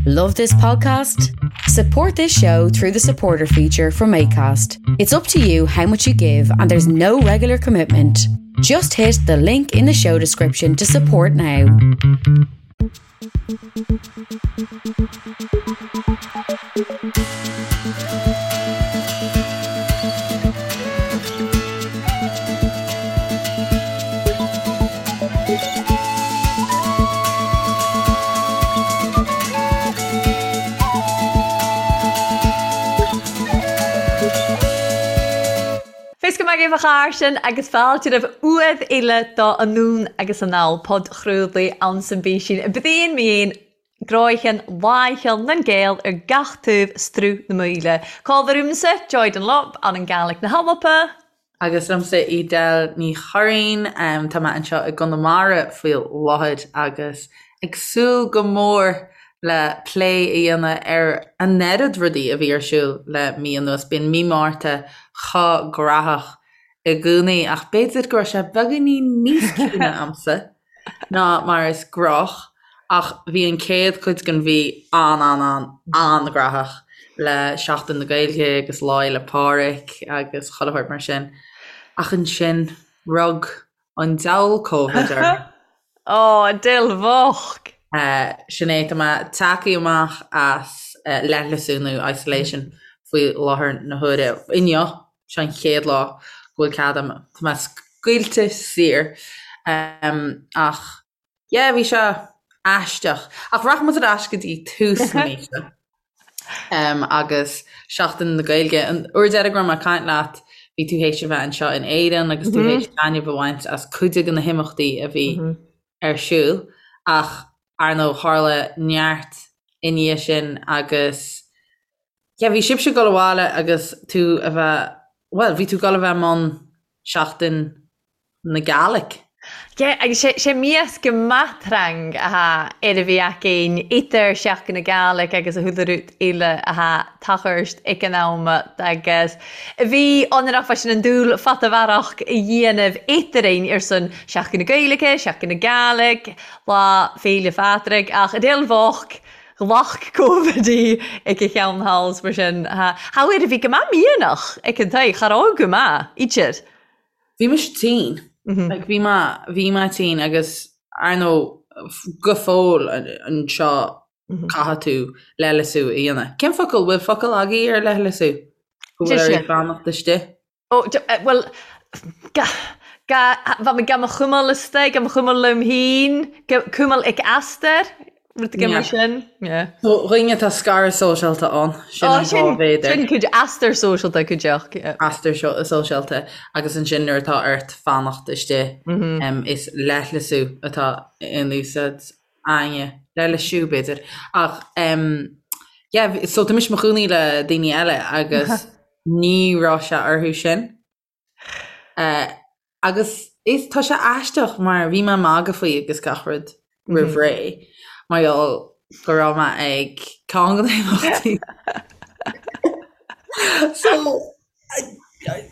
Love this podcast? Support this show through the supporter feature from ACAST. It's up to you how much you give, and there's no regular commitment. Just hit the link in the show description to support now. Fios go maith agaibh a chairde agus fáilte roimh uaimh eile do Anonn agus Anall, podchraoladh anns an bPísín. Brían mín, gráicheann, láicheann nan Gael ar gach taobh struth na Maoile. Cá bhfuil ormsa, Joy Dunlop, ann an Gàidhlig na hAlba. Agus liomsa Edel Ní Churraoin, tá mé anseo i gConamara faoi láthair agus ag súil go mór le plé a dhéanamh ar an oiread rudaí a bhí ar siúl le mí anuas. Bíonn mí Márta chomh graitheach i gcónaí ach b'fhéidir go raibh sé beagáinín níos ciúine a'msa. ná mar is gnách, ach bhí an chéad chuid den mhí an-an-an-an-ghraitheach le Seachtain na Gaeilge agus Lá Fhéile Pádraig agus chuile shórt mar sin. Ach ansin, rug an diabhal Covid orm. Ó, Edel bhocht! Sin é, tá mé tagtha amach as leithleasú nó isolation faoi láthair na huaire. Inniu, Seo an chéad lá go bhfuil cead agam, tá mé scaoilte saor. Ach yeah, bhí sé aisteach. Ach rachaidh muid ar ais go dtí tús na míosa agus Seachtain na Gaeilge. An uair deiridh go raibh mé ag caint leat, bhí tú théis a bheith anseo in Éirinn agus tú théis taitneamh a bhaint as cuid de na himeachtaí a bhí ar siúl. Ach ar ndóigh, tharla neart i ndiaidh sin agus Yeah, bhí sibhse ag dul abhaile agus tú a bheith, bhuel, bhí tú ag dul a bheith i mbun Seachtain na Gàidhlig. Yeah, agus sé, sé mias gu math trang a tha air a bhith againn idir Seachdain na Gàidhlig agus a chuile rud eile a tha tachairt ag an am agus bhí ionrach fá sin an dúil fada mharach a dhéanamh eadrainn ar son Seachdain na Gaeilge, Seachdain na Gàidhlig, Lá Féile Phádraig ach Edel bhocht Ghlac Covid í ag a cheann thall 's mar sin. Tha air a bhith gu math mianach ag an taigh, cha robh gu math, idir. Bhí mise tinn. Like bhí mé, bhí mé tinn agus ar ndóigh go fóill anseo caithfidh tú leithleasú a dhéanamh. Cén focal, bhfuil focal agaibh ar leithleasú? Go bhfuil oraibh fanacht istigh? Ó, bhuel, ga, ga, bha mi gam a chumail istigh, gam a chumail lium fhìn, cumail ic easdair, rud éigin mar sin, yeah. Do dhaoine atá scaradh sóisialta ann, sin an fáth b'fhéidir. Sin cuid easdair sóisialta cuideachd, yeah. Easdair sóisialta agus ansin nuair atá ort fanacht istigh, is leithleasú atá in úsáid againne, leithleisiú b'fhéidir. Ach, yeah, so tá mise i mo chónaí le daoine eile agus Ní raibh sé orthu sin. Agus is, tá sé aisteach mar bhí mé ag magadh faoi agus gach rud roimh ré mar gheall go raibh mé ag ceann de na himeachtaí. So,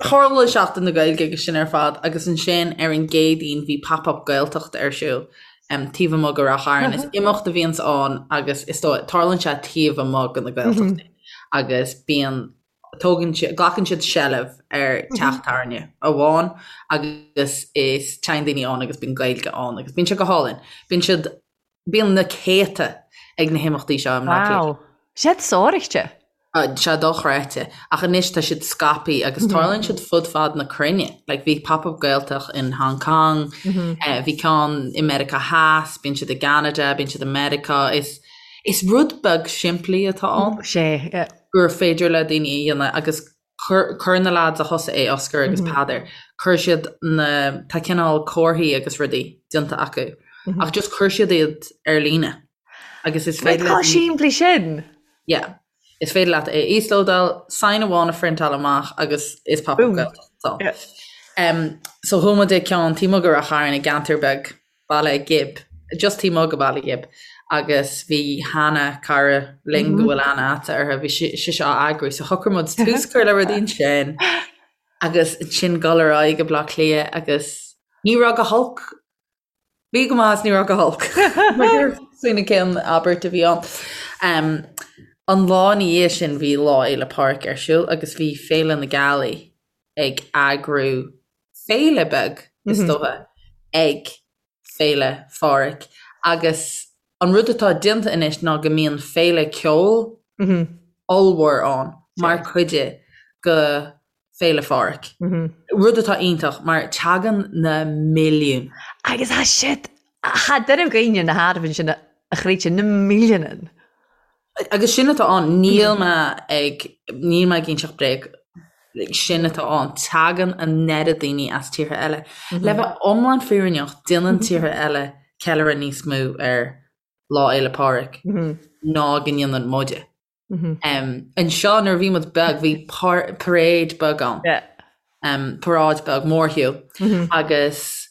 tharla Seachtain na Gaeilge agus sin ar fad agus ansin ar an gCéadaoin bhí Pop Up Gaeltacht ar siúl taobh amuigh de Ráth Chairn. Is imeacht a bhíonns ann agus is dóigh, tarlaíonn sé taobh amuigh de na Gaeltachtaí. agus bíonn, tógann siad, glacann siad seilbh ar teach tábhairne amháin agus is téann daoine ann agus bíonn Gaeilge ann agus bíonn sé go hálainn. Bíonn siad, bíonn na céadta ag na himeachtaí seo i mBleá Cliath. Wow. Siad sároichte. Sé dochreidte. Ach anois tá siad scaipthe agus tarlaíonn siad fud fad na cruinne. Like bhí Pop Up Gaeltacht in Hong Kong, bhí ceann i Meiriceá Theas, bíonn siad i gCeanada, bíonn siad i Meiriceá. Is Is rud beag simplí atá ann. Sé, yeah. Gur féidir le daoine a dhéanamh agus chuir, chuir na lads a thosaigh é, Oscar agus Peadar, chuir siad na, tá cineál comharthaí agus rudaí déanta acu ach just chuir siad iad ar líne agus is féidir le daoine. Chomh simplí sin? Yeah. Is féidir leat é a íoslódáil, sign amháin a phriontáil amach agus is Pop Up Gaeltacht atá ann. Yeah. So chuaigh muid ag ceann taobh amuigh de Ráth Chairn i gceantar beag Baile Ghib, just taobh amuigh de Bhaile Ghib, agus bhí Hannah, cara linn go bhfuil aithne a'dsa uirthi, bhí sise á eagrú, so shocraigh muid tús a chur le rudaí ansin agus ansin dul ar aghaidh go Baile Átha Cliath agus ní raibh go holc, bhí go maith is ní raibh go holc. Mar sin cén abairt a bhí ann. An lá ina dhiaidh sin bhí Lá Fhéile Pádraig ar siúl agus bhí Féile na Gealaí ag eagrú féile beag, is dócha, ag Féile Phádraig agus an rud atá déanta anois ná go mbíonn féile ceoil ollmhór ann mar chuid de Féile Phádraig. Rud atá iontach mar tagann na milliúin. Agus tá siad, tá duine againne na hArmhain sin a chreidte, na milliúin. Agus sin atá ann, níl mé ag, níl mé ag inseacht bréag, sin atá ann, tagann an oiread daoine as tíortha eile. Le bheith iomlán fírinneach, déanann tíortha eile ceiliúradh níos mó ar Lá Fhéile Pádraig ná go ndéanann muide. Anseo nuair a bhí muid beag bhí parade beag ann, paráid beag, mórshiúl, agus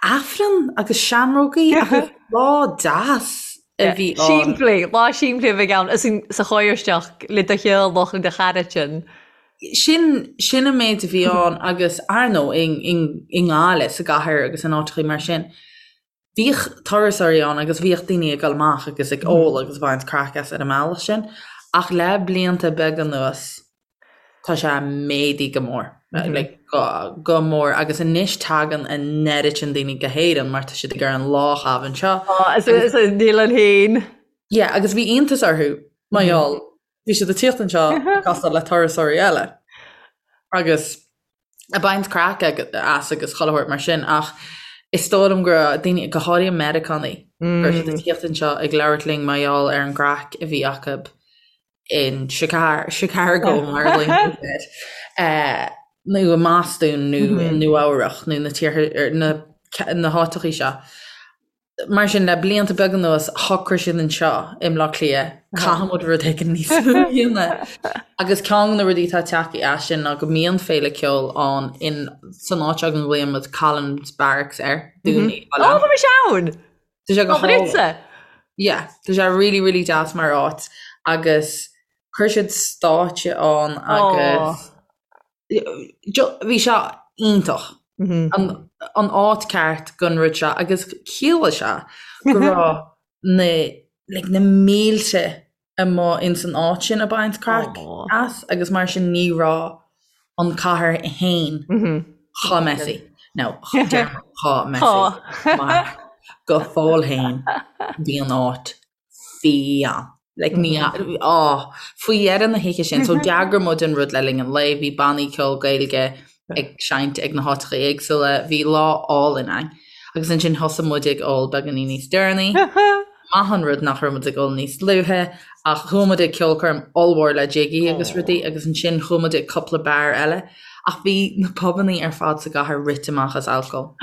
Aifreann agus seamrógaí agus lá deas a bhí ann. Simplí, lá simplí a bheidh ann sa chóir-isteach le do theaghlach, le do chara-tinn. Sin, sin an méid a bhí ann agus ar ndóigh i nGaillimh, sa gcathair agus in áiteachaí mar sin, bhíodh turasóirí ann agus bhíodh daoine ag dul amach agus ag ól agus ag baint craic as ar an mbealach sin ach le blianta beaga anuas tá sé méadaithe go mór, like go, go mór agus anois tagann an oiread sin daoine go hÉirinn mar tá siad ag iarraidh an lá a chaitheamh anseo. Á, is, is, níl an fhéin. Yeah, agus bhí iontas orthu mar gheall, bhí siad ag tíocht anseo ag castáil le turasóirí eile agus ag baint craic as agus chuile shórt mar sin ach is dóigh liom go raibh daoine, go háirithe Meiriceánaigh, go raibh siad ag tíocht anseo ag labhairt linn mar gheall ar an gcraic a bhí acu in Chicago mar a ghlaonn siad air, nó i mBostún nó i Nua Eabhrach nó na tíortha, na háiteachaí seo. Mar sin, le blianta beaga anuas, shocraigh siad anseo i mBleá Cliath, caithfidh muid rud éigin níos mó a dhéanamh. Agus ceann de na rudaí atá tagtha as sin ná go mbíonn féile ceoil ann in, san áit seo go nglaonn muid Collins Barracks air, Dún Uí Choileáin. Ó, bhí mise ann! Tá sé go hálainn. Yeah, tá sé really, really deas mar áit agus chuir siad stáitse ann agus Bhí sé iontach. An áit ceart don rud seo agus chiallaigh sé go raibh na like na mílte amuigh ins an áit sin ag baint craic as agus mar sin ní raibh an cathair fhéin chomh messy. Nó chomh messy mar go fóill fhéin bhí an áit fiáin. Like ní, á, faoi dheireadh na hoíche sin, so d'eagraigh muid an rud le linn an lae, bhí bannaí ceoil Gaeilge ag seinnt ag na háiteacha éagsúla, bhí lá álainn ann. Agus ansin thosaigh muid ag ól beagáinín níos deireanaí. Maith an rud nach raibh muid ag ól níos luaithe, ach chuaigh muid ag ceolchoirm ollmhór le Jiggy agus rudaí agus ansin chuaigh muid ag cúpla beár eile. Ach bhí na pubannaí ar fad sa gcathair rite amach as alcól.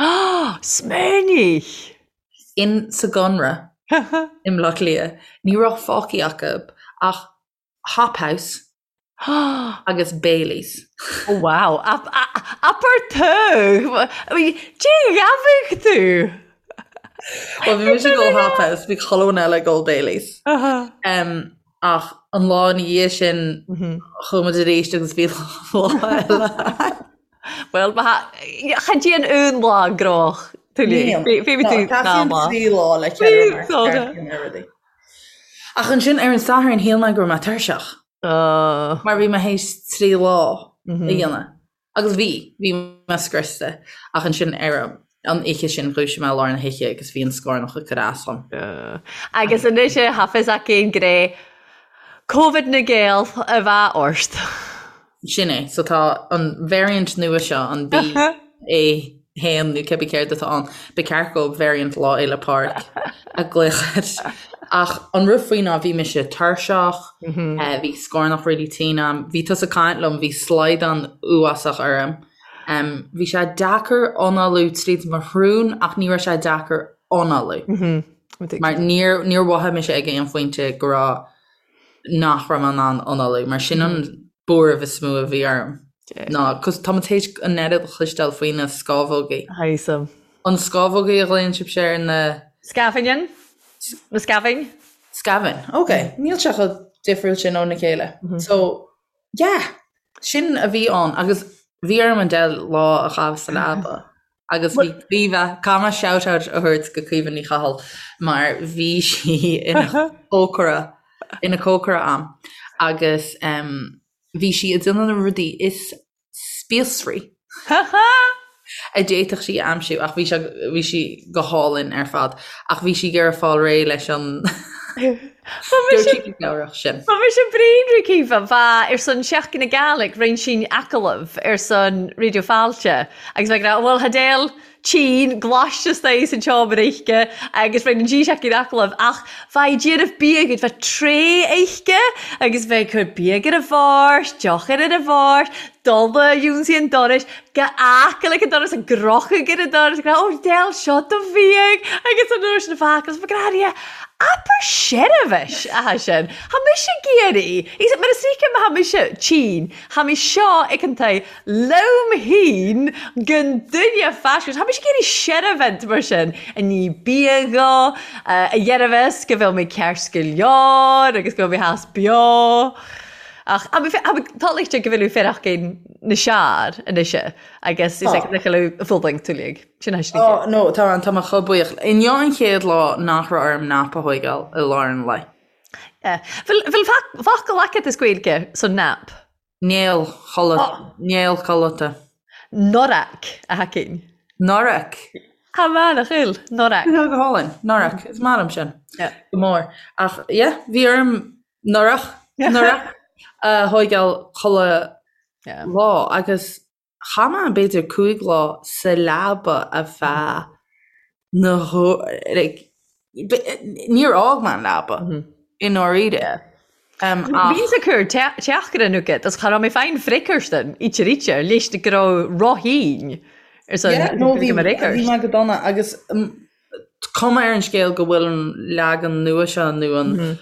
Smaoinigh! In sa gConradh i mBleá Cliath, ní raibh fágtha acu ach Hop House agus Baileys. Oh wow! Abair tú! Dé ghabhadh tú! Well bhí mise ag ól Hop House, bhí chuile dhuine eile ag ól Baileys. Ach an lá ina dhiaidh sin chuaigh muid arís agus bhí lá eile. Bhuel, chan dtéann aon lá gnóthach tuilleadh. Bhí tú Teastaíonn trí lá le ceiliúradh. Ach ansin ar an Satharn shíl mé go raibh mé tuirseach. Mar bhí mé théis trí lá a dhéanamh. Agus bhí, bhí mé scriosta. Ach ansin ar an oíche sin dhúisigh mé i lár na hoíche agus bhí an scornach ag cur as dom. Agus anois tá fios againn gur é Covid na Gael a bheadh ort. Sin é. So tá an variant nua seo, an BA 1 nó cibé céard atá ann, ba cheart go variant Lá Fhéile Pádraig a ghlaoch air. Ach an rud faoi ná bhí mise tuirseach, bhí scornach really tinn a'm, bhí tusa ag caint liom, bhí slaghdán uafásach orm. Bhí sé deacair análú tríd mo shrón ach ní raibh sé deacair análú. Mar níor níor mhothaigh mise ag aon phointe go raibh nach raibh mé in ann análú, mar sin an buaireamh is mó a bhí orm ná 'cause tá muid théis an oiread a chloisteáil faoi na scámhógaí. Thaism. An scámhógaí a ghlaonn sibhse ar na. Scamhain? Na scamhain? Scamhain, ok. Níl sé chomh difriúil sin óna chéile. So, yeah, sin a bhí ann agus bhí orm an deich lá a chaitheamh sa leaba. Agus bhí Caoimhe, caithfidh mé shout out a thabhairt go Caoimhe Ní Chathail mar bhí sí ina cócaire. ina cócaire a'm agus bhí sí ag déanamh na rudaí is spíosraí a d'fhéadfadh sí a aimsiú ach bhí sé bhí sí go hálainn ar fad ach bhí sí ag iarraidh fáil réidh leis an Dúirt sí go cabhrach sin. Ba mise bréan ri Caoimhe, bha ar son Seachtain na Gàidhlig rinn sinn agallamh ar son Raidió Fáilte agus bheith ag rá bhuel tha Edel tinn glaiste istigh san tseomra uisce agus rinn an G-Seachtain agallamh ach bha i déanamh biagaid bha tray uisce agus bheith ag cur biadh ar a bhord, deoch ar ar a bhord, dul a ionsaí an dorais, go h-aice an doras ag crochadh ar an doras ag rá ó Edel seo do bhiadh agus an uair sin a bheith agus bheith ag rá Abair seirbhis atá sin. Tha mise ag iarraidh, mar is ríce má tha mise tinn, tha mé seo ag an tae liom fhéin gan duine faisnéis. Tha mise ag iarraidh seirbhint mar sin, a ní bia dho, a dhearbhas go bhfuil mé ceart go leor agus go bhfuil mé theas beo. Ach tá lichte go bhfuil féarach na seár anois agus is ag le fuling tuilleadh. Sin é sin. Oh, no, tá tá mé chomh buíoch. Inniu an chéad lá nach raibh orm nap a thóigeáil i lár an lae. Bhfuil focal agat as Gaeilge son nap? Néal chodlata. Néal codlata. Norac, a thacainn. Norac. Tá maith, nach bhfuil? Norac. Tá go hálainn. Norac. Is maith liom sin. Go mór. Ach, yeah, bhí orm norac, norac a thóigeáil chuile lá agus Chaith mé b'fhéidir 5 lá sa leaba ar feadh na like níor fhág mé an leaba i ndáiríre. Bhíos ag cur teachaire agat agus cha raibh mé féin fricearstan íte ríte leis go raibh roithín ar son Yeah, no bhí bhí mé go dona agus cuma ar an scéal go bhfuil an leagan nua seo nó an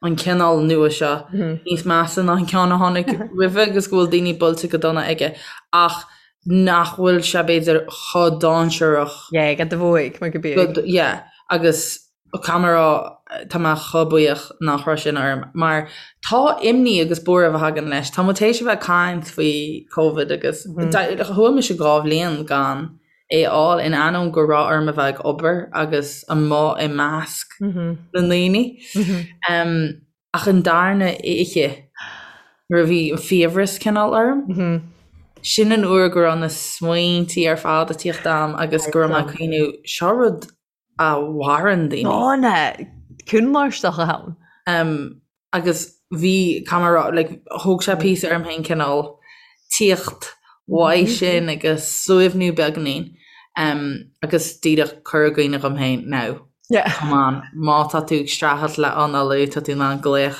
an cineál nua seo níos measa ná an ceann a tháinig roimhe agus go bhfuil daoine buailte go dona aige ach nach bhfuil sé b'fhéidir chomh dainséarach. Yeah, go do bhuaigh mar go bíodh. Yeah, agus caithfidh mé a rá tá mé chomh buíoch nach raibh sin orm mar tá imní agus buaireamh a thagann leis. Tá muid théis a bheith ag caint faoi Covid agus chuaigh mise 2 bhliain gan é a fháil, in ainneoin go raibh orm a bheith ag obair agus amuigh i measc na ndaoine. Ach an darna oíche, nuair a bhí an fiabhras cineál orm, sin an uair go raibh na smaointí ar fad ag tíocht a'm agus go raibh mé ag cuimhniú, seo rud a mharaíonn daoine. Dána, cúnláisteach a ann. Agus bhí, caithfidh mé a rá, like, thóg sé píosa orm féin cineál tíocht uaidh sin agus suaimhniú beagáinín agus díreach cur i gcuimhne dhom féin, now, come on, má tá tú ag streachailt le análú, tá tú in ann glaoch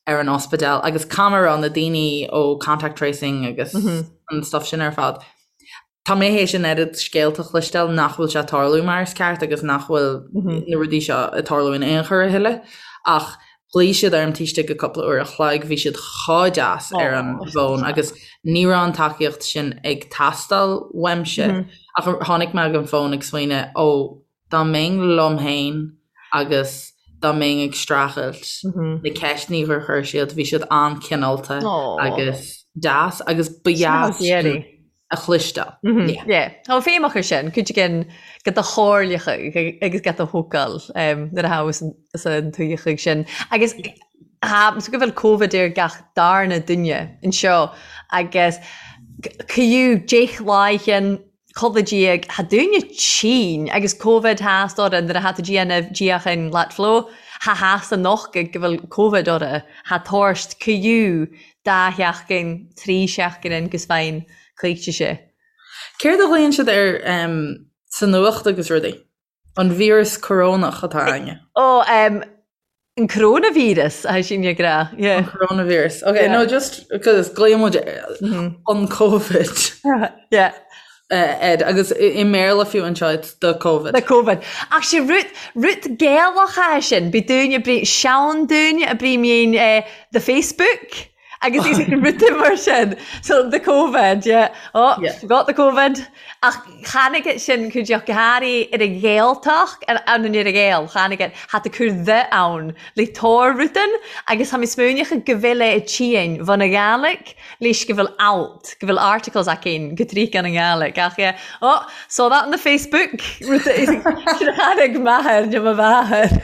ar an ospidéal agus caithfidh mé a rá, na daoine ó contact tracing agus an stuff sin ar fad, Tá mé théis an oiread scéalta a chloisteáil nach bhfuil sé ag tarlú mar is ceart agus nach bhfuil na rudaí seo ag tarlú in aon chor a thuilleadh ach ghlaoigh siad orm taobh istigh de cúpla uair a chloig, bhí siad chomh deas ar an bhfón agus ní raibh an tacaíocht sin ag teastáil uaimse ach tháinig mé ag an bhfón ag smaoineamh ó dá mbeinn liom féin agus dá mbeinn ag streachailt na ceisteanna gur chuir siad, bhí siad an-chineálta agus deas agus ba dheas sin a chloisteáil. Yeah. Tá feidhm acu sin, cuid again go do chomhairleacha agus go do thógáil nuair a thabhas an tuigheachaidh sin. Agus so go bhfuil Covid ar gach darna duine anseo agus caoú deich láighean codladh diaidh, tha daoine tinn agus Covid theas orra nuair a tha tú déanamh díocháin leat flow, tha theas anocht go bhfuil Covid orra, tha tabhairt caoú dá sheachtain, trí seachtain in gus fein coillte sé. Céard a ghlaonn siad air sa nuacht agus rudaí? An víreas corónach atá againne? Ó, an coróinvíreas, a sin ag rá. Yeah. An coróinvíreas. Ok, no, just because glaonn muid an Covid. Yeah. Ed, agus i mBéarla fiú anseo, it's the Covid. The Covid. Ach sé rud, rud Gaelach é sin, bí dúinne brí, sean dúinne a brí mín the Facebook agus is rud mar sin. So the Covid, yeah. Oh, yeah. got the Covid. Ach tháinig it sin cuid go háirithe ar an Ghaeltacht, ar an ar an Ghael, tháinig it, had to cur the ann le tóir rudan agus tá mé smaoineach go bhfuil é i tín bhun a Ghaelic leis go bhfuil alt, go bhfuil articles againn go dtríocha an nGaelic ach yeah, oh, saw that on the Facebook, rud a tháinig m'athair nó mo mháthair.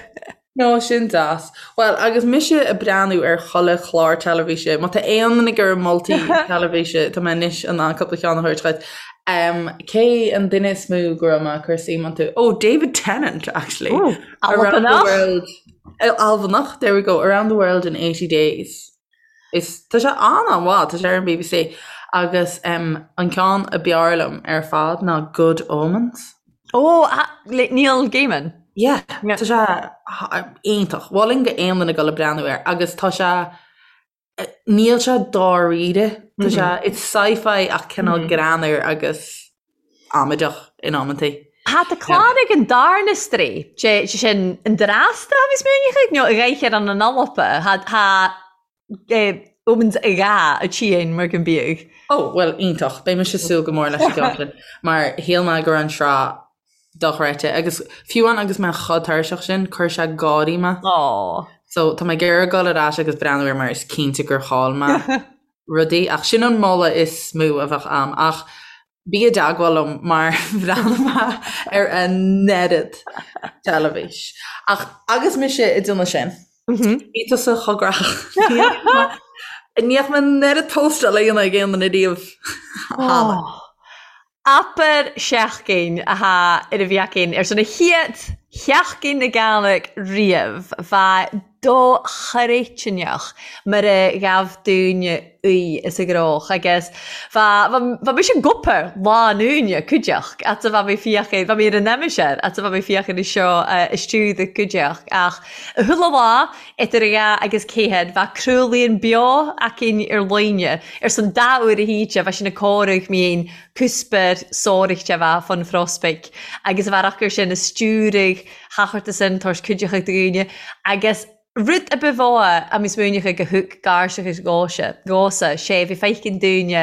No, sin deas. Bhuel, agus mise ag breathnú ar chuile chlár teilifíse, má tá aon duine ag iarraidh moltaí teilifíse, tá mé anois in ann cúpla ceann a thabhairt dhuit. Um, cé an duine is mó go raibh mé ag cur suim iontu? Oh, David Tennant, actually. Ooh, Around the Albanach. world. Eh, Albanach, there we go. Around the world in 80 days. Is, tá sé an-an-mhaith, tá sé ar an BBC. Agus um, an ceann a b'fhearr liom ar fad ná Good Omens. Ó, le Neil Gaiman. Yeah, tá sé iontach. Mholfainn go aon duine dul ag breathnú air agus tá sé níl sé dáiríre. Tá sé it's sci-fi ach cineál greannmhar agus amaideach in amantaí. Tá tá clár ag an darna strae, sé sin an Drasta a bhí smaoineachadh nó a ghaoth an an Alpa. Tá Omens a gha a tSín mar go mbíodh. Ó, bhuel, iontach. Beidh mise ag súil go mór leis an gceann sin, mar shíl mé go raibh an tsraith dochreidte. Agus fiú amháin agus mé chomh tuirseach sin, chuir sé gáirí mé. Ó. So tá mé ag iarraidh dul ar ais agus breathnú air mar is cinnte gur chaill mé rudaí. Ach sin an moladh is mó a bheadh a'm. Ach Bí i dteagmháil liom mar bhreathnaigh mé ar an oiread teilifís. Ach agus mise ag déanamh sin, bhí tusa chomh gnaitheach. Ní fhaca mé an oiread póstáil á dhéanamh ag aon duine riamh cheana. Abair seachtain athá ar a bhí againn ar son a chéad Sheachtain na Gàidhlig riamh, bha dochreidteach mar a ghabh daoine í is a gcroch agus bha, bha, bha mise ag obair lá an Aoine cuideachd fhad 's a bha mé féachaint, bha mé ar an aimsir fhad 's a bha mé féachaint air seo istiúd a cuideachd ach chuile lá idir a dhá agus ceathair bha craoladh beo againn ar líne ar son dá uair a hoíche bha sin ag comhaireamh mín cuspair sóireachta a bheith fon phrospaic agus a bheith acu sin a stiúraigh thachairt san toisc cuideachta daoine agus rud a ba mhó a mbí smaoineachadh go thug gairseachas dhóise, dhósa, sé bhí feicinn daoine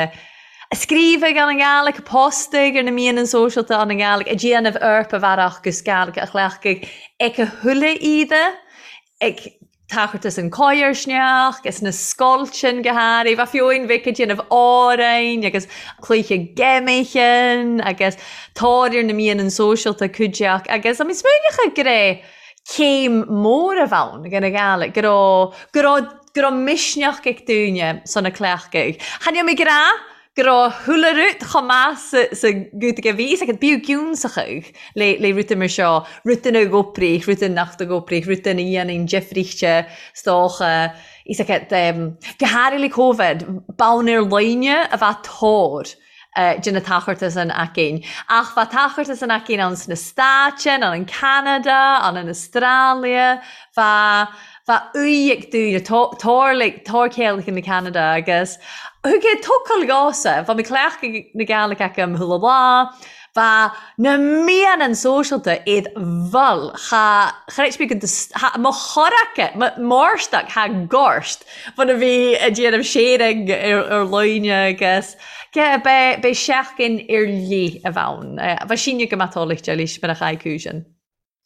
a scríobhadh an an Gàidhlig, a postaigh ar na meáin sóisialta an an Gàidhlig, a déanamh Eorpa bhearach gus Gàidhlig a chleachtadh ag a thuilleadh iad ag Tachairt is an coigearsneach is na scoilteann go háirithe. Bheadh fiúin bheith ag déanamh amhráin agus cluiche geimichin agus tóir ar na mianann sóisialta cuideach agus I mean smaoineochadh go raibh céim mór a bheith ann go na Gàidhlig, go raibh, go raibh, go raibh misneach ag daoine sna cleachtaidh. Chan eil mi ag ràdh go raibh chuile rud chomh maith sa ghiúdach a bhí fhios agat, bíodh giúnsachadh le le rudaí mar seo, rudaí a dh'oibrigh, rudaí nach d'oibrigh, rudaí a dhéanann difríochta 's dócha, fhios agat, go háirithe le Covid, bonn ar líne a bheith tóir de na tacharta san againn. Ach bheadh tacharta san againn ann sna Stáit, ann in Ceanada, ann in Astrália, bheadh Bheadh uaidh ag daoine, tarlaigh, tárchéalacha na Ceanada agus thug é tocal gása, bheadh mé cleachtadh na Gàidhlig agam chuile lá, bheadh na mianann sóisialta iad bhfuil, cha, cha raibh mé go, cha, mo chorraca, mo mhórstac, cha gort, bhfuil a bhí ag déanamh sharing ar, ar líne agus, yeah, beidh, beidh seachtain ar leith a bheadh ann. Bheadh síneadh go maith tólaigh de leis mar a chaith cúiseann.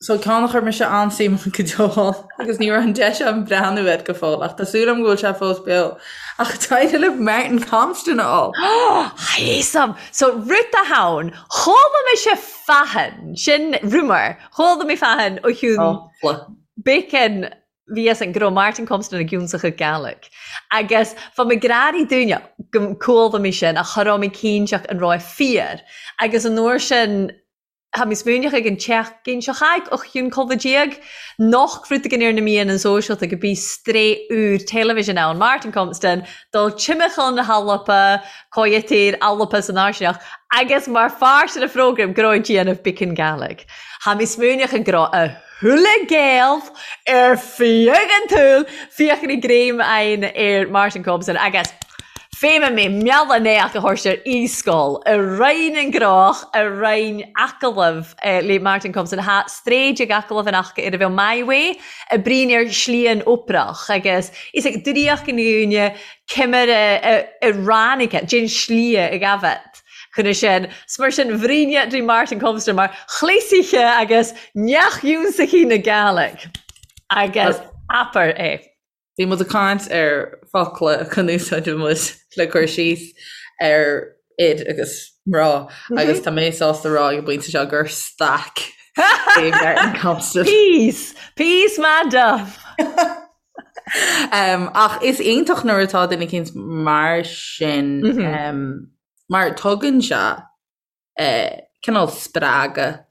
So ceann a chuir mise an-suim go deo ann agus ní raibh an deis agam breathnú air go fóill ach tá súil agam go bhfuil sé fós beo. Ach d'éirigh le Martin Compston a fháil. Fhios a'm! So rud a thann, chuala mise fathan, sin rumour, chuala mé fathan ó chiúin bacon bhí fhios a'm go raibh Martin Compston ag ionsachadh Gàidhlig. Agus bha mi gràraidh dúinne go cuala mi sin ach cha robh mi cinnteach an robh e fíor. Agus an uair sin Tá mé smaoineach ag an tseachtain seo chuaigh och chionn colbha déag, noch rud éigin ar na meáin sóisialta go bí strae úr television ann, Martin Compston, dul timcheall na hAlpa, Coyote Alpa san Áirseach, agus mar pháirt den phrógraim go raibh ag déanamh Bicean Gàidhlig. Tá mé smaoineach go raibh a thuilleadh Gael ar feadh an tsaoil féachaint ag greim aghaidh ar Martin Compston agus Féimeann mé mealladh néach a thabhairt ar e-scoil i Roinn an Ghnóch i Roinn Acallamh le Martin Compston Thá stréid ag acallamh an aca ar a bheadh My Way i bprín ar shlí an Oprach agus is ag draíocht an dhúine cimire i ráinig déan slí ag abhat chun sin. 'S mar sin bhríne drí Martin Compston mar chleasaithe agus neach-iúnsachaí na Gàidhlig agus abair é. Bhí muid ag caint ar focla chun úsáid muid le cur síos ar fhir agus mná agus tá mé sásta rá ag an bpointe seo gur staic é Martin Compston. Piece! Peace math dubh! Ach is iontach nuair atá duine eicínt mar sin mar tugann sé cineál spreagadh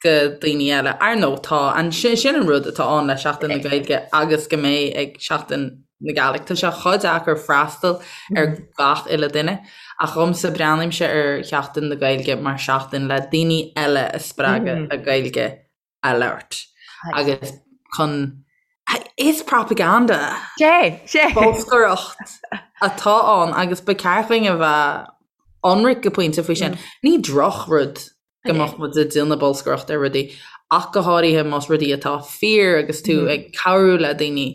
go daoine eile. Ar ndóigh tá an sin an rud atá ann le Seachtain na Gaeilge agus go mbeidh ag Seachtain na Gàidhlig. Tá sé chomh deacair freastal ar gach uile duine ach dhomsa breathnaímse ar Sheachtain na Gaeilge mar seachtain le daoine eile a spreagadh le Gaeilge a labhairt agus chun is propaganda Sé, sé. bolscaireacht atá ann agus ba cheart dúinn a bheith ionraic go pointe faoi sin. Ní drochrud go mbeadh muid ag déanamh bolscaireacht ar rudaí ach go háirithe más rudaí atá fíor agus tú ag cabhrú le daoine.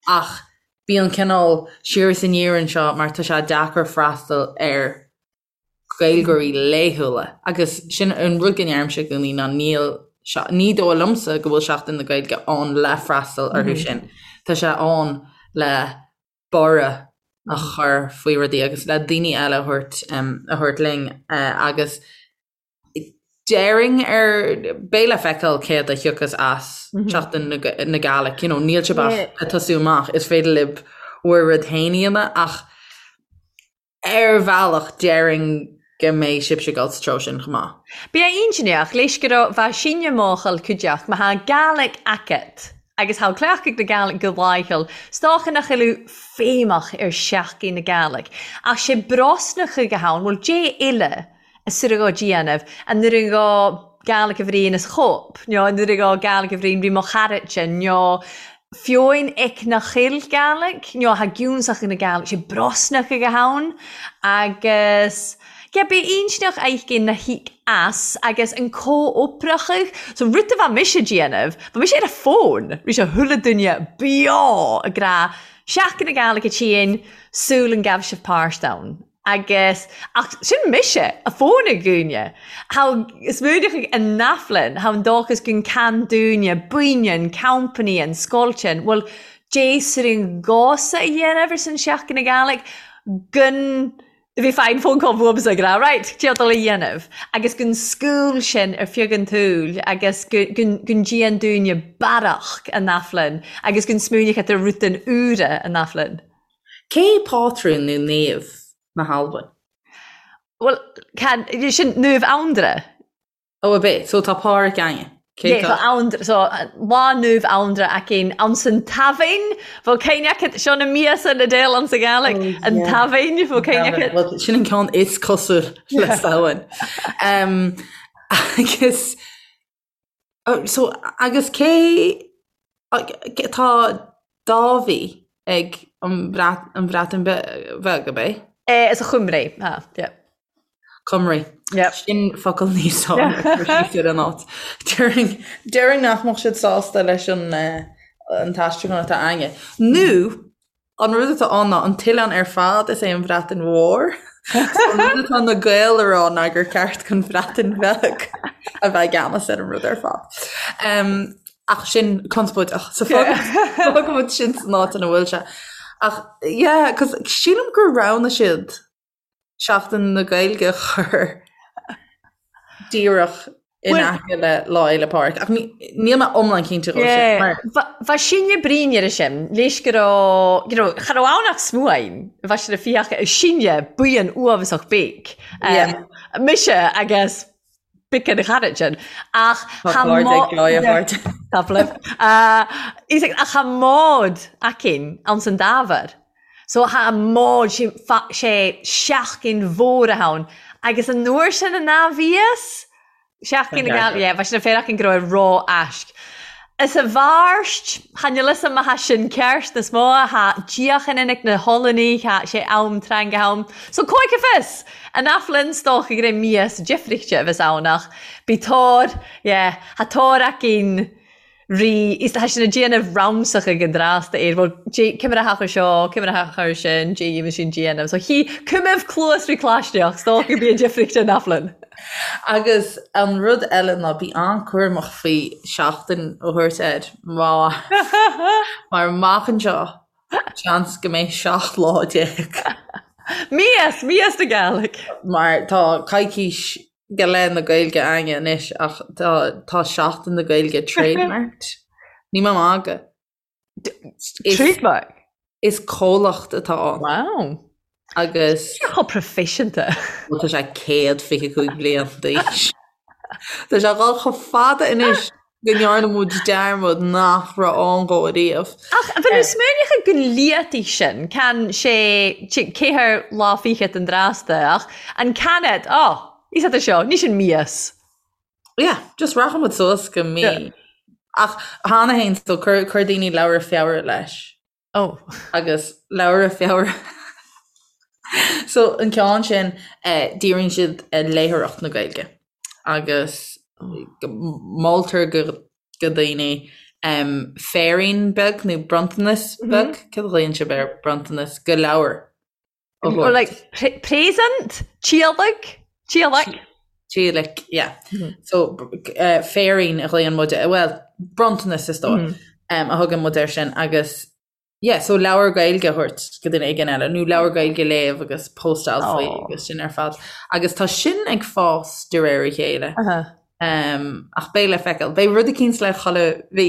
Ach bíonn cineál siar is aniar anseo mar tá sé deacair freastal ar Gaeilgeoirí laethúla agus sin an rud go ndeirimse i gcónaí ná níl ní dóigh liomsa go bhfuil Seachtain na Gaeilge ann le freastal orthu sin. Tá sé ann le borradh a chur faoi rudaí agus le daoine eile a thabhairt a thabhairt linn agus déarfainn ar beidh le feiceáil céard a thiocfas as Seachtain na Gàidhlig, you know, níl sibh ach ag tosú amach, is féidir libh bhur rud féin a dhéanamh ach Ar bhealach, déarfainn go mbeidh sibhse ag dul sa treo sin chomh maith. Bidh a inntinneach leis gu robh bha sinne mòchal cuideachd ma tha Gàidhlig agat agus tha cleachtadh na Gàidhlig gu làitheil, 's dòcha nach eil thu feidhmeach air Seachdain na Gàidhlig. Ach 'sé brosnachadh a th' ann, bhuel, dè eile a suireadh dhó déanamh, an nuair a dhó Gàidhlig a bhriain as chóip, nó an nuair a dhó Gàidhlig a bhriain ri mo charadsa, nó fiúin ic na chill Gàidhlig, nó tha giúnsach na Gàidhlig, sé brosnach ag a hann, agus yeah, b'é intinneach aicinn na híc as agus an comhoipreachadh, so rud a bha mise déanamh, bha mise ar a fón, ri sé chuile duine beo ag rá, Seachdain na Gàidhlig a tSín, sul an gabh sibh páirt ann. Agus, ach sin mise, a fón ag dhúine. Tha smaoineachadh ann-a-fhlann, tha an dóchas gun can dúine, buinnean, company, an scoiltean, bhuel, dè sur an gcósa a dhéanamh ar son Seachdain na Gàidhlig, gun bhí fine phone call bhuamsa ag rá, right, dè dul a dhéanamh, agus gun scúl sin ar feadh an tsúil agus gun gun dèan dúine barrach ann-a-fhlann agus gun smaoineachadh ar rudan úra ann-a-fhlann. Cé pátrún nó naomh na hAlban? Bhuel, can, sin Naomh Anndra. Ó, ab é? So tá Pàdhraic againne. Cé Yeah, tá? tá Anndra, so lá Naomh Anndra againn ansan Taibhinn, bhfuil cuimhne agat, seo na míosa na déil ansa Gàidhlig, Oh, an yeah. Taibhinn, bhfuil cuimhne agat? Well, sin an ceann is cosúil le Samhain. Um, agus Oh, so, agus cé tá Dàibhidh ag an Bhreatain Bheag, ab é? Eh, is a Chymru, ha, yeah. Cymru. Yeah. Sin focal níos fearr ar an áit. Déarfainn nach mbeadh siad sásta leis an an t-aistriúchán atá againne. Nó An rud atá ann ná an t-oileán ar fad, is é an Bhreatain Mhór. So an rud atá na Gaeil a rá ná gur ceart don Bhreatain Bheag a bheith i gceannas ar an rud ar fad. Um, ach sin conspóideach. So fágfaimid sin san áit ina bhfuil sé. Ach yeah, cos sílim gur roghnaigh siad Seachtain na Gaeilge a chur díreach in aice le Lá Fhéile Pádraig. Ach níl mé iomlán cinnte dhó sin. Mar... Bha sinne bruidhinn air sin, leis gu robh, you know, cha robh ann ach smuain, bha sin a fiach sinne buíon uathbhasach beag. Mise agus bic an charad sin. Ach Tá cairde ag Joy a chairde. Tá flip. Ach tha mòd againn anns an dTàbhair. So tha mòd sé seachdain mhòr a th' ann. Agus an uair sin an a bhíos Seachdain na Gàidhlig, yeah, bha sin a féar againn gu robh e ró-aisg. Is a bharst, tha níl 'fhios a'm ma tha sin ceart nas mó, tha diachan inic na h-Ollanaich, tha sé am tranga ann. So cóiche fios! An aiflinn 's dócha gur é mias deifrichte a bheas ann ach bí tóir, yeah, tha tóir againn rí, is tha sin a déanamh ramsach ag an dtrásta air, bhuel, dé, cimire theach ar seo, cimire theach ar sin, dé dhéanamh sin déanamh. So chi, cuimimh cluas rí claisneach, 's dócha go bí an deifrichte an aiflinn. Agus an rud eile ná bí an-chúramach faoi seachtain a thabhairt air mar mar amach anseo seans go mbeidh 17 lá. Míosa, míosa na Gàidhlig. Mar tá coicís. Go Lá na Gaeilge againne anois ach tá tá Seachtain na Gaeilge trademarked. Ní mé magadh. Trademark? Is comhlacht atá ann. Wow. Agus. Sé chomh proifisiúnta. Bhuel tá sé 125 bliain d'aois. Tá sé ag dul chomh fada anois go ndearna muid dearmad nach raibh ann dhó ariamh. Ach bhí tú smaoineachadh gon liataigh sin, can sé ceathair lá fichead an drásta, ach an canad, ó, is ea seo, ní sin mias. Yeah, just rachaidh muid suas go mí. Ach cheana féin, so chuir daoine Leabhra Feabhra leis. Oh. Agus Leabhra Feabhra. So an ceann sin díríonn siad ar léitheoireacht na Gaeilge agus moltar go go daoine féirín beag nó bronntanas beag, céard a ghlaonn sibh ar bronntanas, go leabhar. Or like present? Tíolaic? Tíolaic? Tíolaic, yeah. So féirín a ghlaonn muid, well, bronntanas is dóigh, a thugann muid air sin agus yeah, so leabhar Gaeilge a thabhairt go duine éigin eile nó leabhar Gaeilge a léamh agus postáil faoi agus sin ar fad. Agus tá sin ag fás de réir a chéile. Ach beidh le feiceáil. Beidh rud eicínt le chuile mhí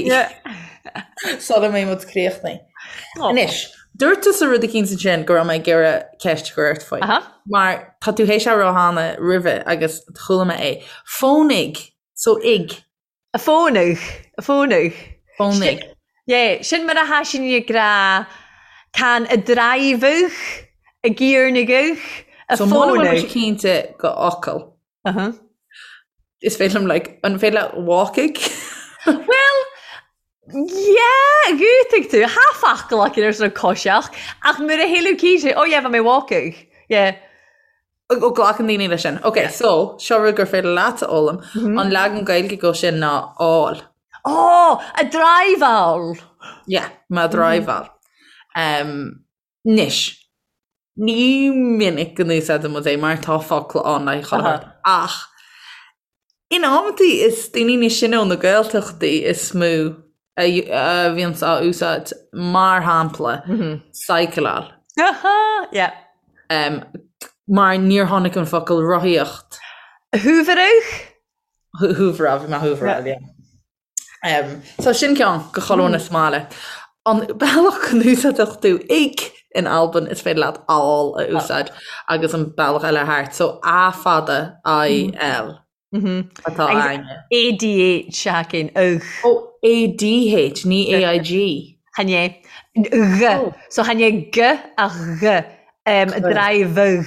sula mbeidh muid críochnaithe. Anois, dúirt tusa rud eicínt ansin go raibh mé ag iarraidh ceist a chur ort faoi. Mar tá tú théis a rá cheana roimhe agus chuala mé é. Fónaigh, so ig. A fónaigh, a fónaigh. Fónaigh. Yeah, sin mar a tha sinn ag ràdh can a dràibhidh, a gciarnaigh, a So muna bhfuil fónaigh. mise cinnte go fhocal. Is féidir liom like, an féidir leat walkaigh? Well, yeah, dhútaigh tú, tha focal againn air san coiseach, ach mura shíleadh cinnte, oh yeah, bha mi walkaigh, yeah. Ó glacann daoine leis sin. Ok, so, seo rud gur féidir leat a fhoghlaim, an leagan Gaeilge go sin ná áil. Oh, a driveáil! Yeah, má driveáil. Um, Anois, ní minic go n-úsáideann muid é mar tá focla ann le haghaidh chuile shórt, ach in amantaí is daoine níos sine ó na Gaeltachtaí is mó a bhíonns á úsáid, mar shampla, cycleáil. Yeah. Mar níor tháinig an focal rothaíocht. Húbhradh? Húbhradh, bhí mé húbhradh, yeah. So sin ceann go chuile dhuine sa mbaile. An bealach go n-úsáideadh tú ig in Albain is féidir leat àil a úsáid agus an bealach eile thart. So A fada I L atá againne. ADH againn, ugh. Ó ADH, ní AIG. Chan é. G. So chan é G ach G. Drive.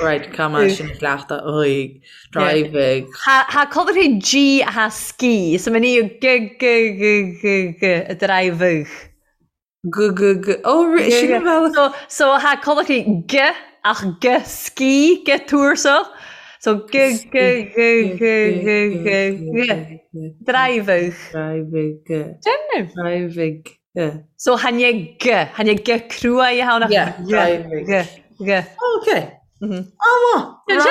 Right, come on, sin cleachtadh aghaidh, driving. Tha colartha G a ski, so many G G G G G a driving. G G G oh sin an bealach. So so tha colartha G ach G ski G tuarsach. So G G G G G G G driving. Driving. Déanamh. Driving. So chan é G, chan é G cruaidh a tháinig Yeah, G, G, G. Oh, okay. Oh, maith.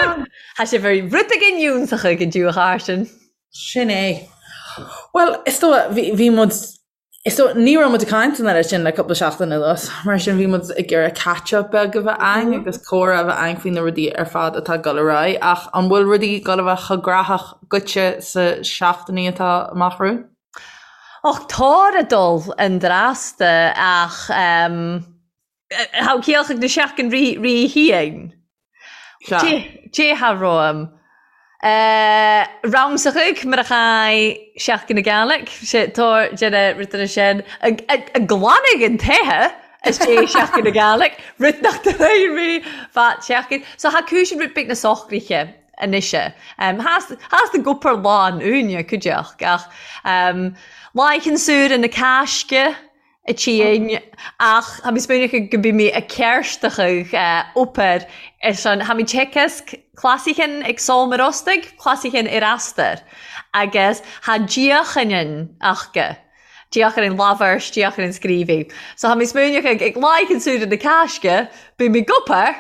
Tha sé very rud againn iúnsach ag an dtiúch sin. Sin é. Well, is dóigh, bhí, bhí muid, is dóigh, ní raibh muid ag caint an oiread sin le cúpla seachtain anuas, mar sin bhí muid ag iarraidh catch-up beag a bheith againn agus comhrá a bheith againn faoi na rudaí ar fad atá ag dul ar aghaidh, ach an bhfuil rudaí ag dul a bheith chomh graitheach dhuitse sa seachtainí atá amach romhainn? Och, tàir a' dol an dràsta ach tha ciallach na seachdain ri-thiain. Dè tha romham. Ramsachadh mar a chaidh Seachdain na Gàidhlig, tàir déana rudeanna sin a' glanadh an toighe as dè Seachdain na Gàidhlig, rud nach d-reir ri fad seachdain. So tha cùisean rud beag na socraithe. anois. Theastaigh gopar lán uainne, cuideachd, ach láicheann súr na Cásca a tSín, ach tha mi smaoineachadh go bi mi a' cearstachadh obair ar son, tha mi teagasg clasaichean ag Sòm Yr Ostaig, clasaichean ar Astar, agus tha diachanann aca, diachanann labhairt, diachanann scríobhaidh. So tha mi smaoineachadh ag láicheann súr na Cásca, bi mi gopar,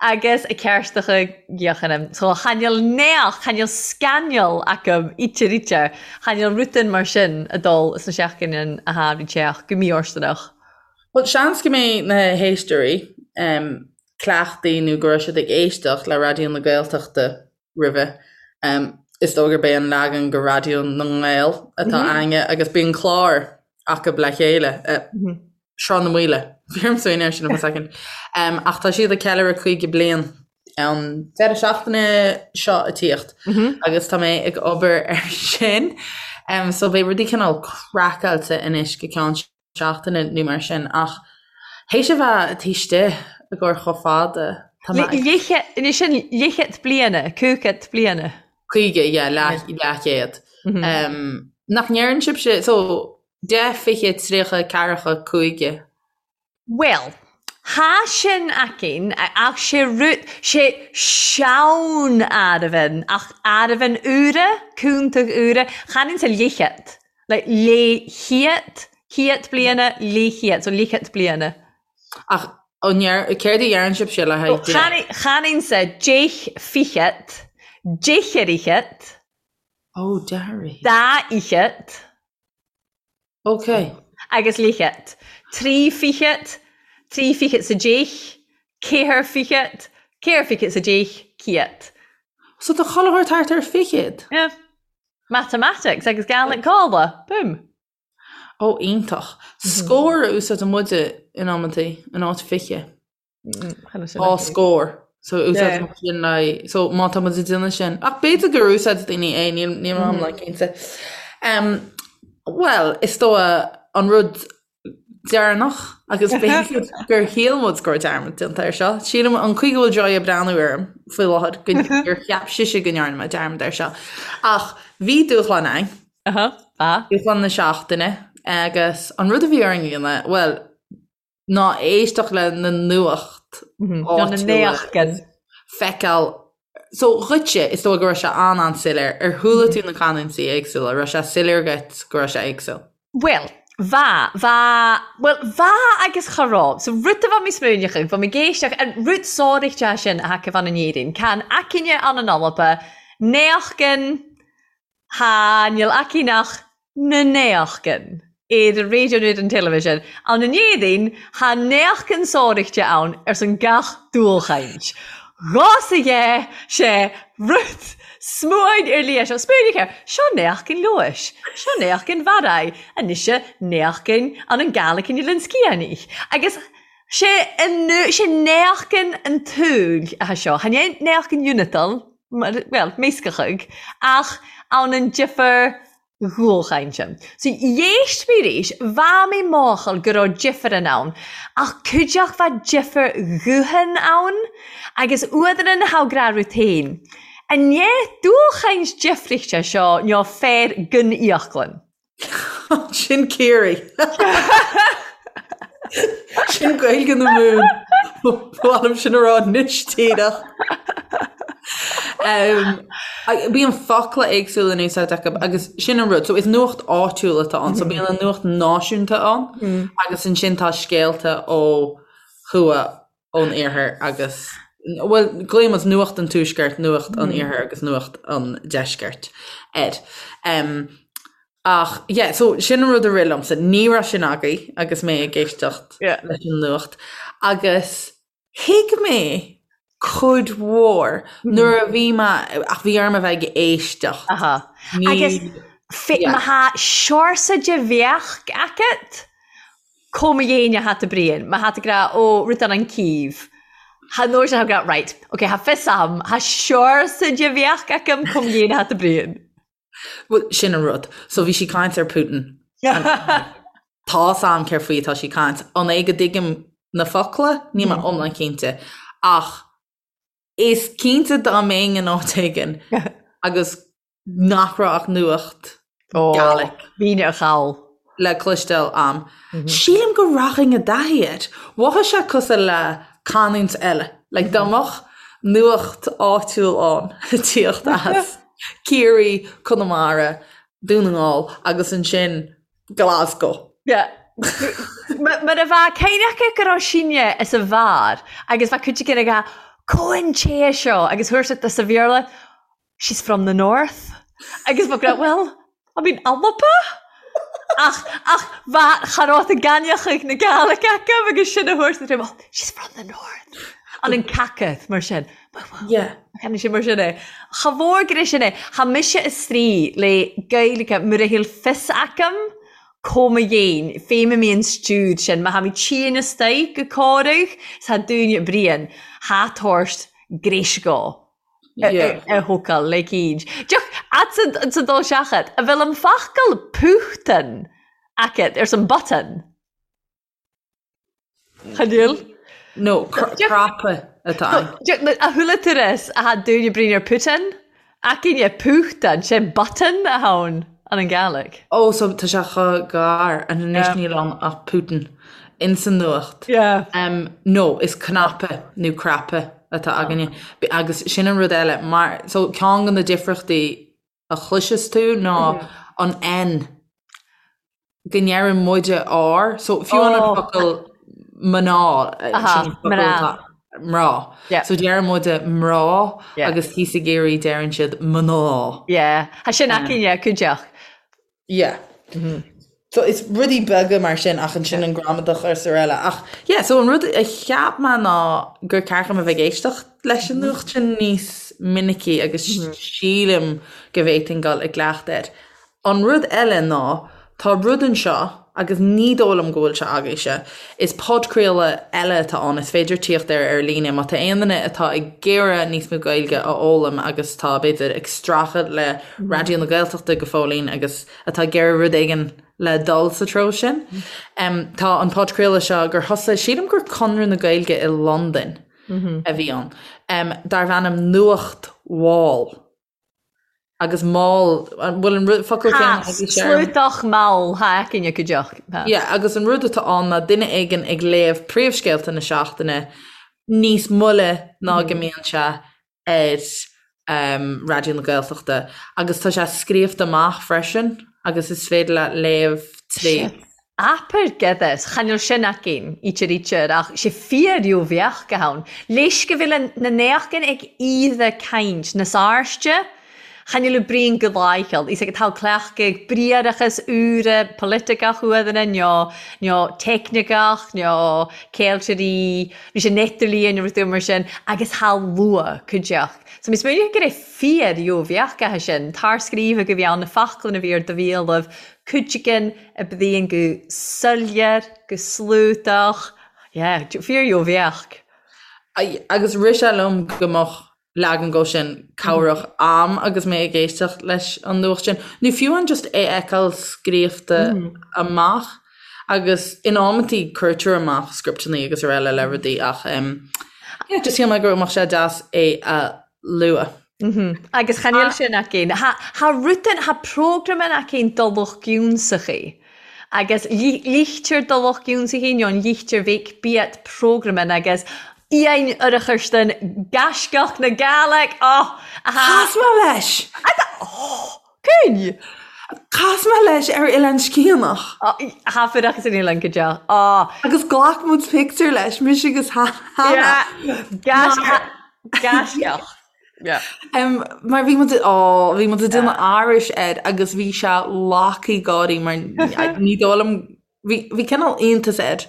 agus a cearstacha gheochanam. So chan eil neach, chan eil scainneal agam ítear ítear, chan eil rudan mar sin a dol sna seachdain a tha ri teach go mífhóirsteanach. Bhuel, seans go mbeidh na héisteoirí. cleachtaithe nó go raibh siad ag éisteacht le Raidió na Gaeltachta roimhe. Is dóigh gurb é an leagan de Raidió na nGael atá againne agus bíonn clár acu le chéile, Sruth na Maoile. Bhí orm smaoineamh air sin for a second. Ach tá siad ag ceiliúradh 50 bliain an deireadh seachtaine seo ag tíocht agus tá mé ag obair ar sin. So beidh rudaí cineál craiceáilte anois go ceann seachtaine nó mar sin ach théis a bheith taobh istigh i gcomhair chomh fada, tá mé ag. Leithchead, sin leithchead bliana, cúigead bliana. 50, yeah, leath, leathchéad. Nach ndeireann sibhse, so, 10, 20, 30, 40, 50. Bhuel, tha sin againn, ach sé rud, sé sean-áireamhan, ach áireamhan úra, cúntach úra, chan insa leithchead, like leithchéad, céad bliana, leithchéad, so leithchead bliana. Ach an ndeir, céard a dheireann sibhse le haghaidh deich? Chan, chan insa deich fichead, deich ar fhichead. Ó, deich ar fhichead. Dá fhichead. Ok. Agus leithchead. Tri fichead, tri fichead 's a deich, ceathair fichead, ceathair fichead 's a deich, céad. So tá chuile shórt thart ar fichead? Yeah. Matamatics agus Gaelic Còmhla. Boom. Ó, iontach. Scór a úsáideann muide in amantaí, in áit fiche. Dhá scór. So úsáid muid sin le so má tá muid ag déanamh sin. Ach b'fhéidir gur úsáid daoine é, níl níl mé iomlán cinnte. Um, Well, is dóigh an rud deireanach agus b'fhéidir gur shíl muid go raibh dearmad déanta air seo. Sílim an chaoi go bhfuil Joy ag breathnú orm faoi láthair go gur cheap sise go ndearna mé dearmad air seo. Ach bhí dúshlán ann. Dúshlán na seachtaine agus an rud a bhí orainn a dhéanamh, well, ná éisteacht le na nuacht áitiúla feiceáil. So dhuitse, is dóigh go raibh sé an-an-soiléir. Ar chuala tú na canúintí éagsúla? Raibh sé soiléir dhuit go raibh sé éagsúil? Bhuel, bha, bha, bhuel, bha agus cha robh. So rud a bha mi smaoineachadh, bha mi ag èisteachd, an rud sòraichte sin a tha aca ann an Èirinn, can aicinne ann an Alba, naochdan, Tha, níl aici ach na naochdan ar an raidió nó ar an television. Ann an Éirinn, tha naochdan sòraichte ann airson gach dualchaint. Dhos a dhe sé rud smuain ar lia seo. Smaoinigh air, seo naochdan Leodhais, seo naochdan Bharraigh, anois naochdan ann an Gàidhlig in Oilean Sgiathanach. Agus sé an, sé naochdan an tsaoil atá seo. Chan é naochdan Uinatal. bhuel, meascachadh, ach ann an difear dhualchainte. So, dh'éist mé arís, bha mi màchail gu robh difearan ann, ach cuideachd bha difear ghuthan ann, agus uadaran tha ag ràdh rud fhèin. An ndéth dualchaint difrichte seo neo fear gun íoclann. Sin Ciarraí. Sin Gaeilge na Mumhan. Ba mhaith liom sin a rá anois díreach. Bíonn focla éagsúla in úsáid acu agus sin an rud. So is nuacht áitiúil atá ann. So bíonn an nuacht náisiúnta ann agus ansin tá scéalta ó thuaidh ón iarthar agus, bhuel, glaonn muid nuacht an tuaiscirt, nuacht an iarthair agus nuacht an deiscirt air. Ach, yeah, so sin an rud a rith liomsa. Ní raibh sin agaibh agus mé ag éisteacht leis an nuacht. Agus thuig mé cuid mhór nuair a bhí mé, ach bhí orm a bheith ag éisteacht. Aha. Agus má tha seòrsa de bheachd agat, Cò mo dhéine a tha tu bruidhinn, ma tha tu ag ràdh, ó, rud ann an Cìobh. Tha an uair sin tha ag ràdh, right, ok, tha fios a'm, tha seòrsa de bheachd agam cò mo dhéine a tha tu bruidhinn. Bhuel, sin an rud. So bhí sí ag caint ar Putin. Tá's a'm céard faoi atá sí ag caint. An é go dtuigim na focla? Níl mé iomlán cinnte. Ach is cinnte dá mbeinn in áit éigin agus nach raibh ach nuacht Gaelic. Bhínn ar chall. le cloisteáil a'm. Sílim go rachainn i dtaithí air. Mhothaigh sé cosúil le canúint eile. Like dá mbeadh nuacht áitiúil ann ag tíocht as Ciarraí, Conamara, Dún na nGall agus ansin Glasgow. Yeah. Mar a bheadh cén acu go raibh sinne is a bhfearr agus bheadh cuid againn ag rá Cò an té seo agus thabharfadh sa Bhéarla she's from the north agus bheadh rá well I mean Alba ach ach bheadh cha rabh a gainneachaidh na Gàidhlig acu agus sin a thabhairt na oh, she's from the north. An an cacath mar sin. Yeah. Chan sin mar sin é. Cha mhór gur é sin é. Tha mise a-straidh le Gaeilge mura bhfuil fios agam có mo dhéin, fém a mbíonn stiúd sin, má tha mi tìon astoigh gu còradh, 's tha dùine bruidhinn, tha tabhairt gréisg a thocal le cíd. Deoch, at sa dul seachad, a bhfuil an focal púchtan agat ar son button? Cha níl? No, cnaipe atá ann. A chuala tú ris a tha dùine bruidhinn air Putin? Againne púchtan, sé button a tha ann an an Gàidhlig. Ó, so tá sé chomh gar, and anois níl ann ach Putin ins an nuacht. Yeah. No, is cnaipe nó craipe atá againne. Agus sin an rud eile, mar, so ceann de na difríochtaí a chloiseas tú ná an N, go ndeireann muide R, so fiú an oh. focal mná mná. mná. So deireann muide mná agus thíos i gCiarraí deireann siad mná. Yeah, Tá sin againne cuideach. Yeah. Mm -hmm. So is rudaí beaga mar sin ach ansin an gramadach is araile. Ach yeah, so an rud a cheap mé ná gur ceart dom a bheith ag éisteacht leis an nuacht sin níos minicí agus sílim go bhféadfainn dul i gcleachtadh air. An rud eile ná tá rud anseo agus ní dóigh liom go bhfuil sé agaibhse, is podchraoladh eile atá ann, is féidir tíocht air ar líne má tá aon duine atá ag iarraidh níos mó Gaeilge a fhoghlaim agus tá b'fhéidir ag streachailt le Raidió na Gaeltachta go fóillín agus atá ag iarraidh rud éigin le dul sa treo sin. Tá an podchraoladh seo gur thosaigh, sílim gur Conradh na Gaeilge i Londain a bhí ann, darbh ainm Nuacht Mhall. Agus mall, an bhfuil an rud, focal céanna Tá, sluaiteach mall, tha againne cuideachd. Yeah, agus an rud atá ann ná duine éigin ag léamh príomhscéalta na seachtaine níos moille ná go mbíonn sé ar Raidió na Gaeltachta agus tá sé scríofa amach freisin agus is féidir leat léamh tríd. Abair gedas, chan eil sin againn, ítear ítear, ach 's e fíor-riobheach a th' ann. Leis go bhfuil na n-eachgan ag iadha cainnt nas airste, chan eil bruidhinn gu láicheall. Is ag tá cleachtaidh briathrachas úra polaiticeach uaidheanna, nó nó teicniceach, nó ceiltearaí, Bhí sé n-idirlíon nó rud mar sin agus tha luath cuideachd. So mi smaoinigh gur é fíor gheobheadh aithe sin, tarscríobhadh a bhí ann, na foclainn a bhí ar do bhéalaibh, cuideigin a bhíonn go soiléir, go sluaiteach, yeah, fíor gheobheadh. Agus rith sé liom go mbeadh leagan dhó sin cabhrach a'm agus mé ag éisteacht leis an nuacht sin, nó fiú amháin just é a fheiceáil scríofa amach agus in amantaí cuirtear amach scripteanna agus araile le rudaí ach yeah, just shíl mé go mbeadh sé deas é a lua. Agus chan eil sin againn. Tha rudan, tha programan againn do lucht giúnsachaí. Agus ligtear do lucht giúnsachaí nó an ligtear bheadh biat programan agus Iain Urcharstan gaisceach na Gàidhlig, oh! Aha! Chas mé leis! Oh! Cyn! Chas mé leis ar Oileán Sgiathanach. Tha fuireachas an oileán go deo. Oh! Agus ghlac muid pictiúr leis, mise agus Hannah. Yeah! Gaisceach. Yeah. Mar bhí muid, oh, bhí muid ag déanamh aithris air agus bhí sé lagtha gáirí mar ní dóigh liom Bhí bhí cineál iontas air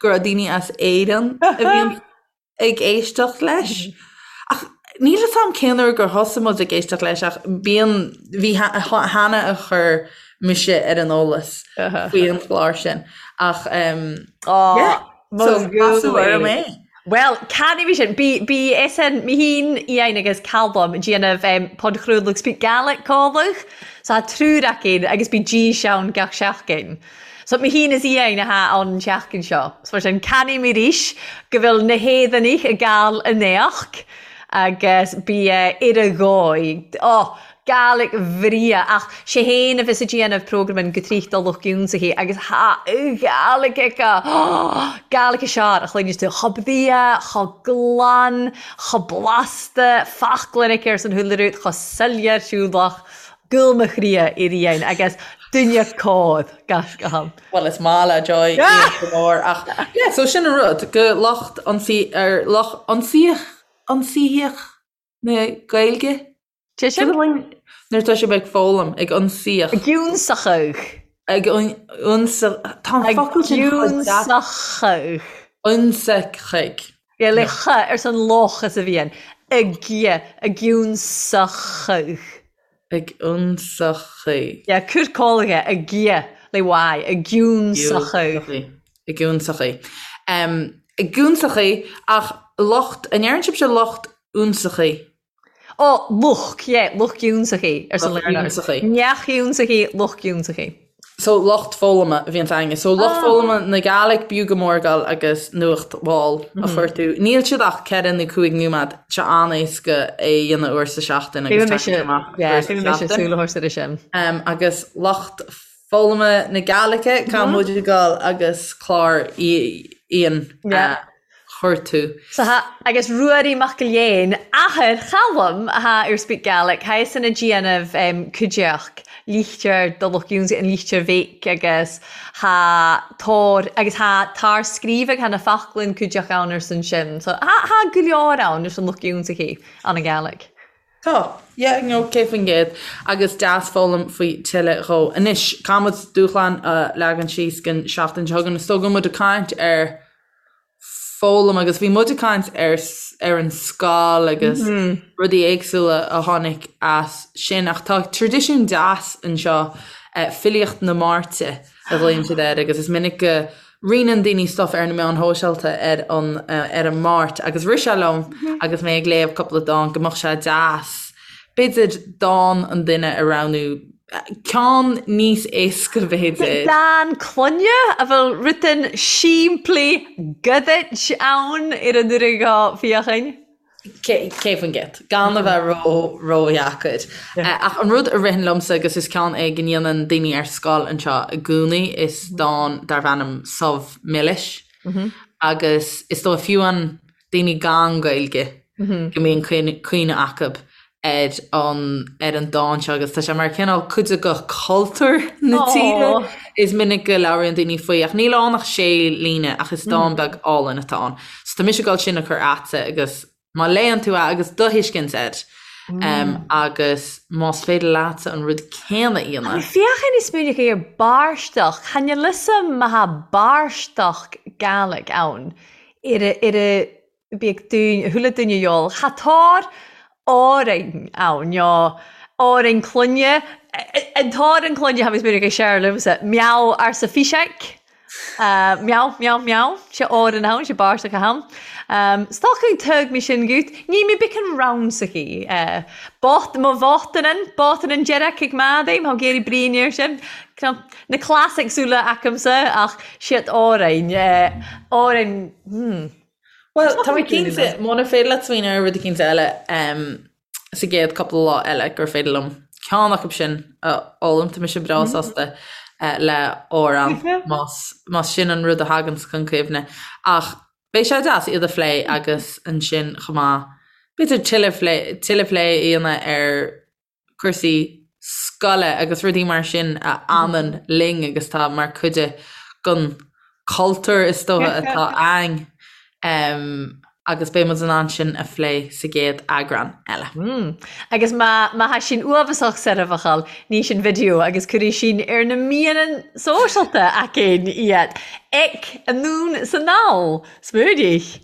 go raibh daoine as Éirinn a bhíonn ag éisteacht leis. Ach níl fhios a'm cén uair gur thosaigh muid ag éisteacht leis ach bíonn bhí Hannah a chuir mise ar an eolas faoi an chlár sin ach yeah, so casadh orm é. Bhuel, can i bhí sin? Bí bí SN mi hín Iain agus Calum déanamh um, podchraoladh Speak Gaelic còmhladh. So tha triúr againn agus bi dís ann gach seachdain. So mi hín is Iain a tha ann an tseachdain seo. So mar sin cannaidh mi rìs go bhfuil na h-Éireannaich ag gabhail an éachd agus bi uh, ar a dhóigh. Oh, Gàidhlig bhreà, ach 'sé fhéin a bhios a' déanamh programan gu triuch do lucht giúnsachaí agus tha Gàidhlig aici! Gàidhlig a sear a chluineas tú, cho brea, cho glan, cho blasta, foclainn aici ar son chuile rud, cho soiléir siúlach, gol mo chroidhe ar Iain agus duine cóir, gaisce. Bhuel is maith le Joy Ian go mór ach yeah so sin an rud go lucht ionsaí ar lucht ionsaíoch ionsaíoch na Gaeilge. Sé sin? Nuair atá sibh ag foghlaim, ag ionsaíoch. Ag ionsachadh. Ag ionsa... Tá an focal sin chomh deas. Ag ionsachadh. Ionsachadh. Yeah, le ch ars an loch is a bhíonn. Ag, ag ionsachadh. Ag ionsachadh. Yeah, cur cólaithe, ag, le Y, ag ionsachadh. Ag ionsachadh. Ag ionsachadh, ach lucht, an ndeireann sibhse lucht ionsachaidh? Ó, lucht, yeah, lucht ionsachaidh, arsa Lucht ionsachaidh. Neach ionsachaidh, lucht ionsachaidh. So, lucht foghlama a bhíonns againne. So, lucht foghlama na Gàidhlig, b'fhiú go mór dul agus nuacht mhall a chuartú. Níl siad ach 4 nó 5 nóiméad, tá sé an-éasca é a dhéanamh uair sa seachtain agus tagann sé amach uair sa seachtain. Súil a thabhairt air sin. Agus lucht foghlama na Gàidhlige, caithfidh muid a dhul agus clár Iain a chuartú. So tha, agus Ruairí Mac Gilleáin, athair Chaluim, atha ar Speak Gaelic, tha é-san a' dìanamh cuideachd lichtir do lucht ionnsaigh an lichtir bheich agus tha tor agus tha tar scríobhadh tha na faclainn cuideachd ann arsan sin. So tha tha gu leòr ann arson lucht ionnsachaidh ann an Gàidhlig. Tá, yeah, no, 100%. Agus deas foghlaim faoi tuilleadh dhó. Anois, caithfidh muid dúshlán a leagan síos don seachtain seo chugainn. Is dóigh go bhfuil muid ag caint ar foghlaim agus bhí muid ag caint ar ar an scoil agus rudaí éagsúla a tháinig as sin ach tá traidisiún deas anseo, filíocht na Máirte a ghlaonn siad air agus is minic go roinneann daoine stuff ar na meáin shóisialta ar an ar an Máirt agus rith sé liom agus mé ag léamh cúpla dán go mbeadh sé deas b'fhéidir dán an duine a roghnú ceann níos éasca b'fhéidir. Dán clainne a bhfuil rudan simplí gudaid ann ar an uair dho féachain. 100%. Gan a bheith ró, ródheacair. Ach an rud a ritheann liomsa, agus is ceann é go ndéanann daoine ar scoil anseo i gcónaí, is dán darb ainm Subh Milis. Agus is dóigh fiú an daoine gan Gaeilge go mbíonn cuimhne acu ar an ar an dán seo agus tá sé mar cineál cuid de chultúr na tíre. Is minic go labhraíonn daoine faoi ach níl ann ach sé líne ach is dán beag álainn atá ann. So tá mise ag dul sin a chur a'tsa agus má léann tú é agus do thuiscint air agus más féidir leatsa an rud céanna a dhéanamh. Féachain is smaoineach ar bàrstach, chan eil fhios a'm ma tha bàrstach Gàidhlig ann ar a ar a bíodh duine, chuile duine dheol, tha tàr òrainn ann, no òrainn clainne, an t-òran clainne, tha mi smaoineach air Seàrl liomsa, meow arsa Fiseig, meow, meow, meow, 's e òran ann, 's e bàrstach a tha ann. 'S tòcainn tug mi sin gut, ní mi bicean rammsachadh, bot, mo bhotannan, botannan deireadh ag madaidh, má géirí bríon air sin, na classics uile acamsa ach siad òrainn, òrainn, hmm. Bhuel, tá mé cinnte, muna féidir leat smaoineamh ar rud eicínt eile sa gcéad cúpla lá eile gur féidir liom ceann acu sin a fhoghlaim, tá mise breá sásta le amhrán más sin an rud a thaganns chun cuimhne. Ach beidh sé deas iad a phlé agus ansin chomh maith, b'fhéidir tuilleadh plé a dhéanamh ar cúrsaí scoile agus rudaí mar sin a fhanann linn agus tá mar cuid den cultúr is dócha atá againn agus beidh muid in ann sin a phlé sa gcéad eagrán eile. Agus má má tha sinn uabhasach soirbheachal, ní sinn video agus cuirfidh sinn ar na meadhanan sóisealta againn iad. Ic, anonn 's anall! Smaoinigh!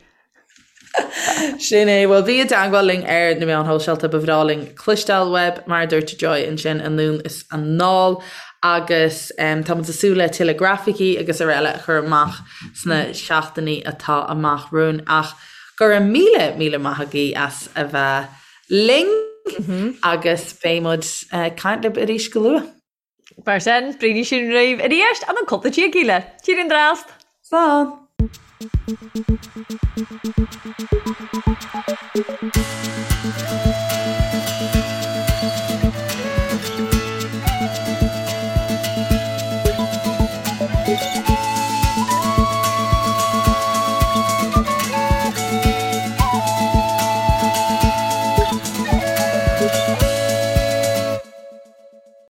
Sin é. Bhuel, bí i dteagmháil linn ar na meáin shóisialta, ba bhreá linn cloisteáil uaibh, mar a dúirt Joy ansin, anonn is anall. Agus tá muid ag súil le tuilleadh grafaicí agus araile a chur amach sna seachtainí atá amach romhainn. Ach go raibh míle, míle maith agaibh as a bheith linn agus beidh muid ag caint libh arís go luath. Mar sin, braonaidh sinn riubh a-rìst ann an cupla tíogaidh eile. Tìr an dràst! Slán!